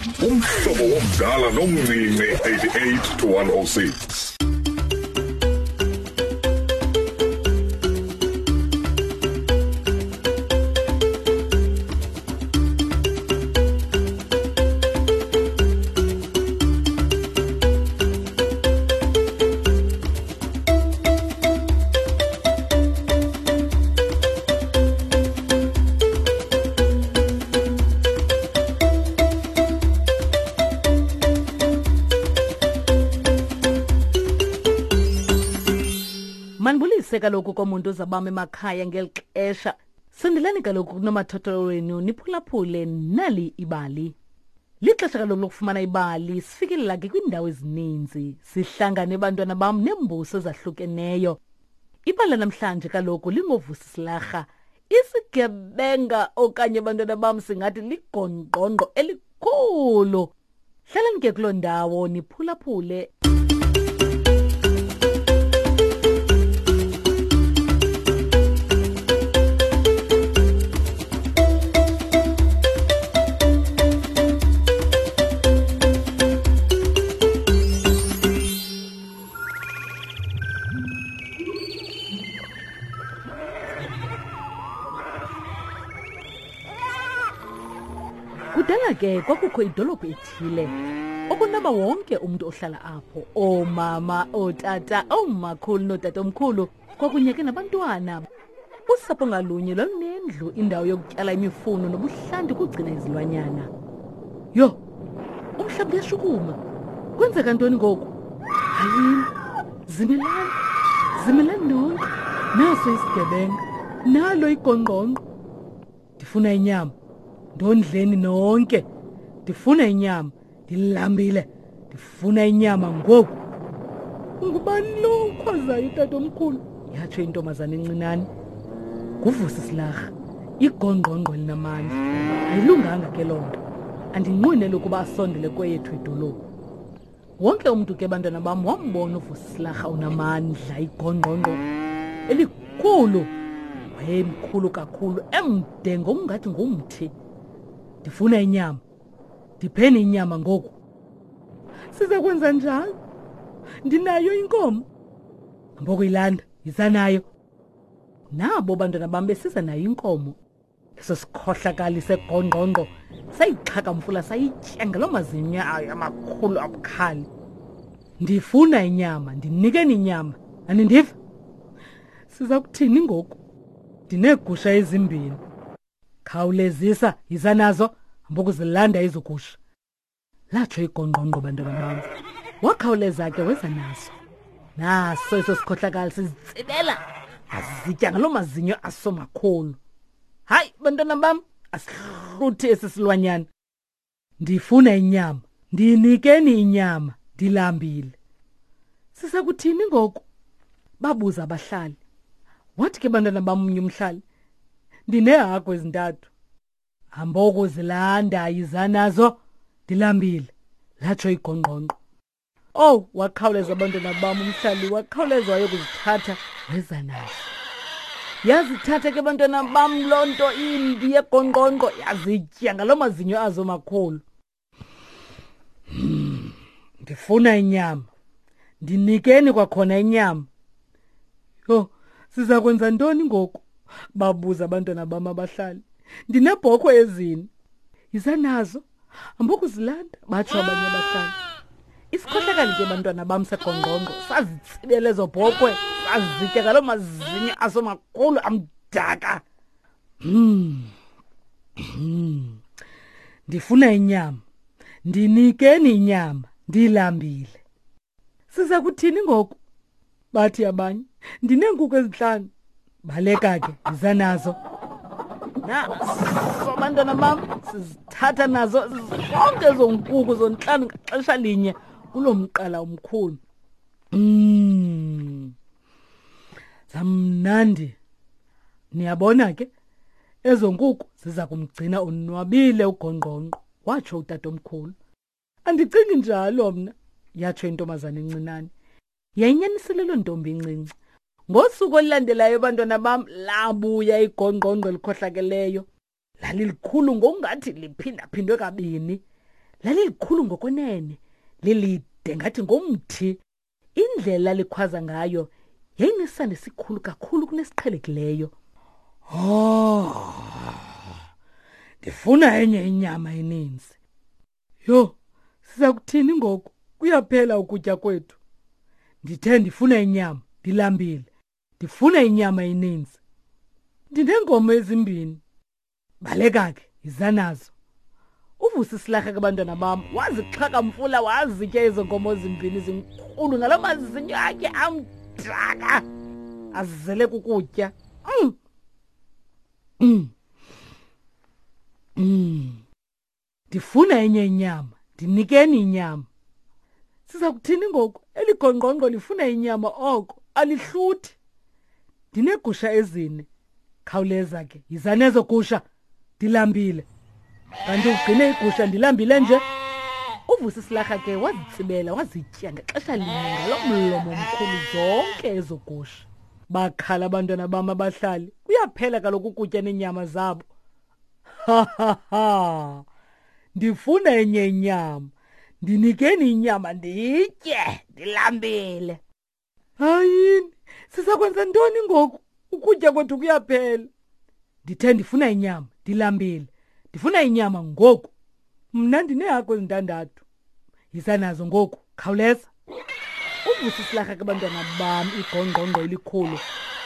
Umhlobo womdala nomncinci 88 to 106. Manibulise kaloku komuntu uzabam emakhaya ngeli xesha. Sondelani kaloku kunomathotholo wenu niphulaphule nali ibali. Lixesha kaloku lokufumana ibali sifikelela ke kwiindawo ezininzi. Sihlangane bantwana bam neembuso ezahlukeneyo. Ibali lanamhlanje kaloku lingovusi silarha. Isigebenga okanye bantwana bam singathi ligongqongqo elikhulu. Hlalani ke kuloo ndawo niphulaphule. Kudala ke kwakukho idolophu ethile okunaba wonke umntu ohlala apho, oomama, ootata, oomakhulu nootatomkhulu kwakunye ke nabantwana. Usapho ngalunye lwalunendlu, indawo yokutyala imifuno nobuhlanti ukugcina izilwanyana. Yho, umhlaba uyashukuma. Kwenzeka ntoni ngoku? Hayini, zimelani, zimelani nonke. Naso isigebenga, nalo igongqongqo. Ndifuna inyama, ndondleni nonke. Ndifuna inyama, ndilambile. Ndifuna inyama ngoku. Ungubani lo ukhwazayo tatomkhulu? Yatsho intombazana encinane. Nguvusi silarha, igongqongqo elinamandla. Ayilunganga ke loo nto. Andinqweneli ukuba asondele kweyethu idolophu. Wonke umntu ke bantwana bam wambona uvusi silarha unamandla, igongqongqo elikhulu. Wayemkhulu kakhulu, emde ngokungathi ngumthi. Ndifuna inyama. Ndipheni inyama ngoku. Siza kwenza njalo. Ndinayo inkomo. Hambokuyilanda, yiza nayo. Nabo bantwana bam besiza nayo inkomo. Eso sikhohlakali segongqongqo sayixhakamfula sayitya ngaloo mazinyo ayo amakhulu abukhali. Ndifuna inyama, ndinikeni inyama. Anindiva? Siza kuthini ngoku? Ndineegusha ezimbini. Khawulezisa, yiza nazo, hambokuzilanda ezo gusha. Latsho igongqongqo bantwana bam. Wakhawuleza ke weza naso. Naso eso sikhohlakali sizitsibela, azitya ngaloo mazinyo aso makhulu. Hayi bantwana bam, asihluthi esi silwanyana. Ndifuna inyama, ndinikeni inyama, ndilambile. Sisakuthini ngoku? Babuza abahlali. Wathi ke bantwana bam omnye umhlali, ndineehagu ezintathu. Hambokuzilanda, yiza nazo, ndilambile, latsho igongqongqo. Owu, wakhawuleza abantwana bam umhlali, wakhawuleza wayokuzithatha weza nazo. Yazithatha ke bantwana bam loo nto imbi yegongqongqo, yazitya ngaloo mazinyo azo makhulu. Ndifuna inyama, ndinikeni kwakhona inyama. Yho, siza kwenza ntoni ngoku? Babuza abantwana bam abahlali. Ndineebhokhwe ezine, yiza nazo, hambokuzilanda, batsho abanye abahlali. Isikhohlakali ke bantwana bam segongqongqo sazitsibela ezo bhokhwe, sazitya ngaloo mazinyo aso makhulu amdaka. Ndifuna inyama, ndinikeni inyama, ndilambile. Siza kuthini ngoku? Bathi abanye, ndineenkuku ezintlanu. Baleka ke, yiza nazo. Naso bantwana bam, sizithatha nazo zonke ezo nkuku zontlanu ngaxesha linye kuloo mqala omkhulu. Zamnandi. Niyabona ke, ezo nkuku ziza kumgcina onwabile ugongqongqo, watsho utatomkhulu. Andicingi njalo mna, yatsho intombazana encinane. Yayinyanisile loo ntombi incinci. Ngosuku olulandelayo bantwana bam labuya igongqongqo elikhohlakeleyo. Lalilikhulu ngokungathi liphindaphindwe kabini. Lalilikhulu ngokwenene, lilide ngathi ngomthi. Indlela likhwaza ngayo yayinesandi esikhulu kakhulu kunesiqhelekileyo. Oh, ndifuna enye inyama eninzi. Yho, siza kuthini ngoku? Kuyaphela ukutya kwethu. Ndithe ndifuna inyama, ndilambile. Ndifuna inyama eninzi. Ndineenkomo ezimbini. Baleka ke, yiza nazo. Uvusa isilarha ke bantwana bam, wazixhakamfula wazitya ezo nkomo zimbini zinkulu ngaloo mazinyo akhe amdaka azele kukutya. Ndifuna enye inyama, ndinikeni inyama. Siza kuthini ngoku? Eli gongqongqo lifuna inyama oko, alihluthi. Ndineegusha ezine. Khawuleza ke, yiza nezo gusha. Ndilambile. Kanti ugcine igusha ndilambile nje. Uvusa isilarha ke wazitsibela wazitya ngexesha linye ngalo mlomo mkhulu zonke ezo gusha. Bakhala abantwana bam abahlali. Kuyaphela kaloku ukutya neenyama zabo. Ha ha ha. Ndifuna enye inyama. Ndinikeni inyama nditye, ndilambile. Hayini, sisakwenza ntoni ngoku? Ukutya kwethu kuyaphela. Ndithe ndifuna inyama, ndilambile. Ndifuna inyama ngoku. Mna ndineehagu ezintandathu. Yiza nazo ngoku, khawuleza. Uvusa isilarha ke bantwana bam igongqongqo elikhulu.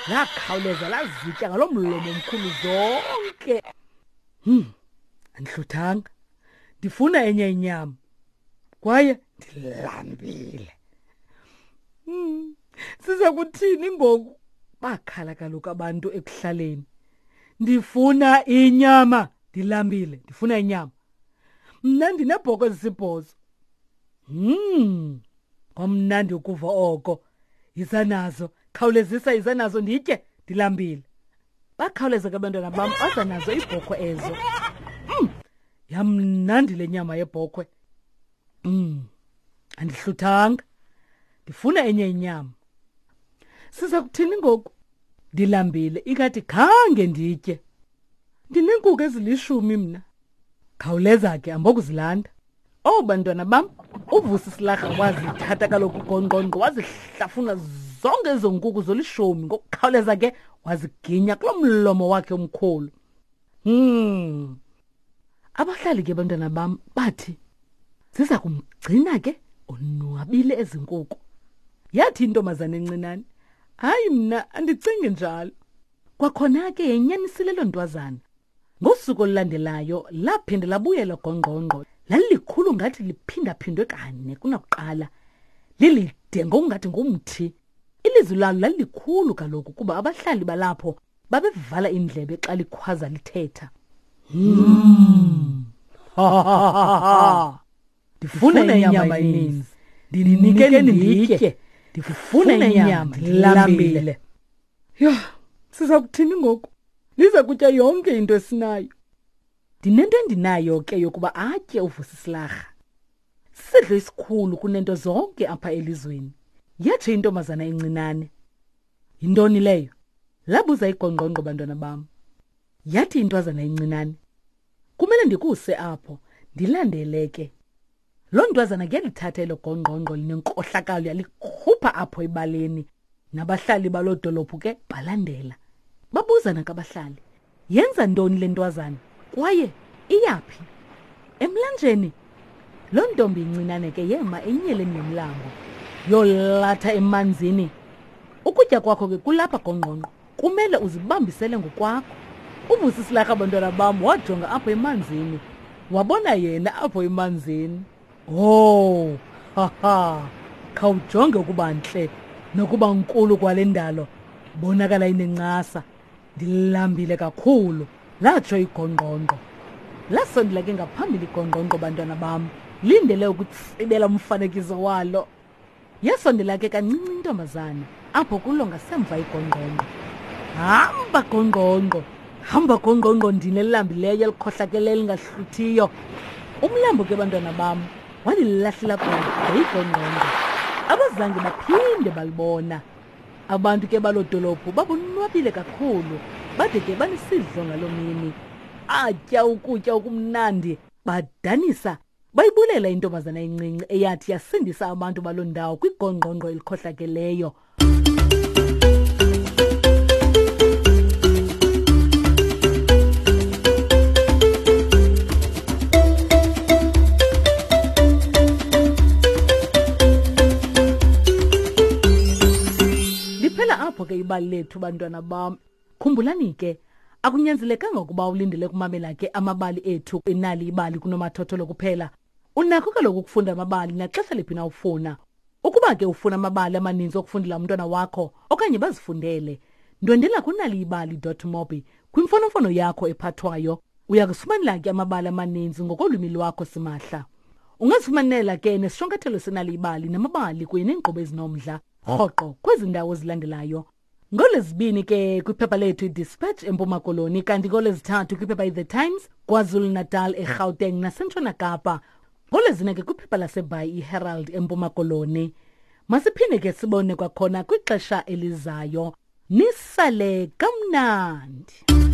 Lakhawuleza lazitya ngaloo mlomo mkhulu zonke. Andihluthanga. Ndifuna enye inyama. Kwaye ndilambile. Siza kuthini ngoku? Bakhala kaloku abantu ekuhlaleni. Ndifuna inyama, ndilambile, ndifuna inyama. Mna ndinebhoko ezisibhozo. Kwamnandi ukuva oko. Yiza nazo, khawulezisa, yiza nazo nditye, ndilambile. Bakhawuleza ke abantwana bam, baza nazo iibhokhwe ezo. Yamnandi le nyama yebhokhwe. Andihluthanga. Ndifuna enye inyama. Siza kuthini ngoku? Ndilambile, ingathi khange nditye. Ndineenkuku ezilishumi mna. Khawuleza ke, ambokuzilanda. Oh bantwana bam, uVusi Silarha wazithatha kaloku gongqongqo wazihlafuna zonke ezo nkuku zolishumi ngokukhawuleza ke waziginya kulo mlomo wakhe omkhulu. Abahlali ke bantwana bam bathi ziza kumgcina ke onwabile ezi nkuku. Yathi intombazana encinane, hayi mna andicingi njalo. Kwakhona ke yenyanisile loo ntwazana. Ngosuku olulandelayo laphinde labuyela gongqongqo. Lalilikhulu ngathi liphindaphindwe kane kunakuqala. Lilide ngokungathi ngumthi. Ilizwi lalo lalilikhulu kaloku kuba abahlali balapho babevala iindlebe xa likhwaza lithetha. Ndifuna inyama eninzi. Ndinikeni nditye. Ndifuna inyama, ndilambile. Yho, siza kuthini ngoku? Liza kutya yonke into esinayo. Ndinento endinayo ke yokuba atye uVusisilarha. Sisidlo esikhulu kunento zonke apha elizweni. Yatsho intombazana encinane. Yintoni leyo? Labuza igongqongqo bantwana bam. Yathi intwazana encinane, kumele ndikuse apho, ndilandele ke. Loo ntwazana ke yalithatha elo gongqongqo linenkohlakalo yalikhupha apho ebaleni. Nabahlali baloo dolophu ke balandela. Babuzana kabahlali, yenza ntoni le ntwazana kwaye iyaphi? Emlanjeni. Loo ntombi incinane ke yema enyeleni yomlambo, yolatha emanzini. Ukutya kwakho ke kulapha gongqongqo, kumele uzibambisele ngokwakho. Uvusi silarha bantwana bam wajonga apho emanzini, wabona yena apho emanzini. Oh, ha ha, khawujonge ukuba ntle nokuba nkulu kwale ndalo, bonakala inencasa. Ndilambile kakhulu, latsho igongqongqo. Lasondela ke ngaphambili igongqongqo bantwana bam, lindele ukutsibela umfanekiso walo. Yasondela ke kancinci intombazana apho kulo ngasemva igongqongqo. Hamba gongqongqo, hamba gongqongqo ndini elilambileyo elikhohlakeleyo elingahluthiyo. Umlambo ke bantwana bam walilahlela kude igongqongqo. Abazange baphinde balibona. Abantu ke baloo dolophu babonwabile kakhulu, bade ke banesidlo ngaloo mini. Atya ukutya okumnandi, badanisa, Bayibulela intombazana encinci eyathi yasindisa abantu baloo ndawo kwigongqongqo elikhohlakeleyo. Liphela apho ke ibali lethu bantwana bam. Khumbulani ke, akunyanzelekanga ukuba ulindele ukumamela ke amabali ethu enali ibali kunomathotholo kuphela. Unakho kaloku ukufunda amabali naxesha liphi na ufuna. Ukuba ke ufuna amabali amaninzi okufundela umntwana wakho okanye bazifundele, ndwendela kunaliibali.mobi kwimfonomfono yakho ephathwayo. Uya kusifumanela ke amabali amaninzi ngokolwimi lwakho simahla. Ungazifumanela ke nesishwankathelo senalibali namabali kunye neenkqubo ezinomdla rhoqo kwezi ndawo zilandelayo. NgoLwezibini ke kwiphepha lethu iDispatch eMpuma Koloni kanti ngoLwezithathu kwiphepha iThe Times KwaZulu-Natal eGauteng naseNtshona Kapa. NgoLwezine ke kwiphepha laseBhayi iHerald eMpuma Koloni. Masiphinde ke sibone kwakhona kwixesha elizayo. Nisale kamnandi.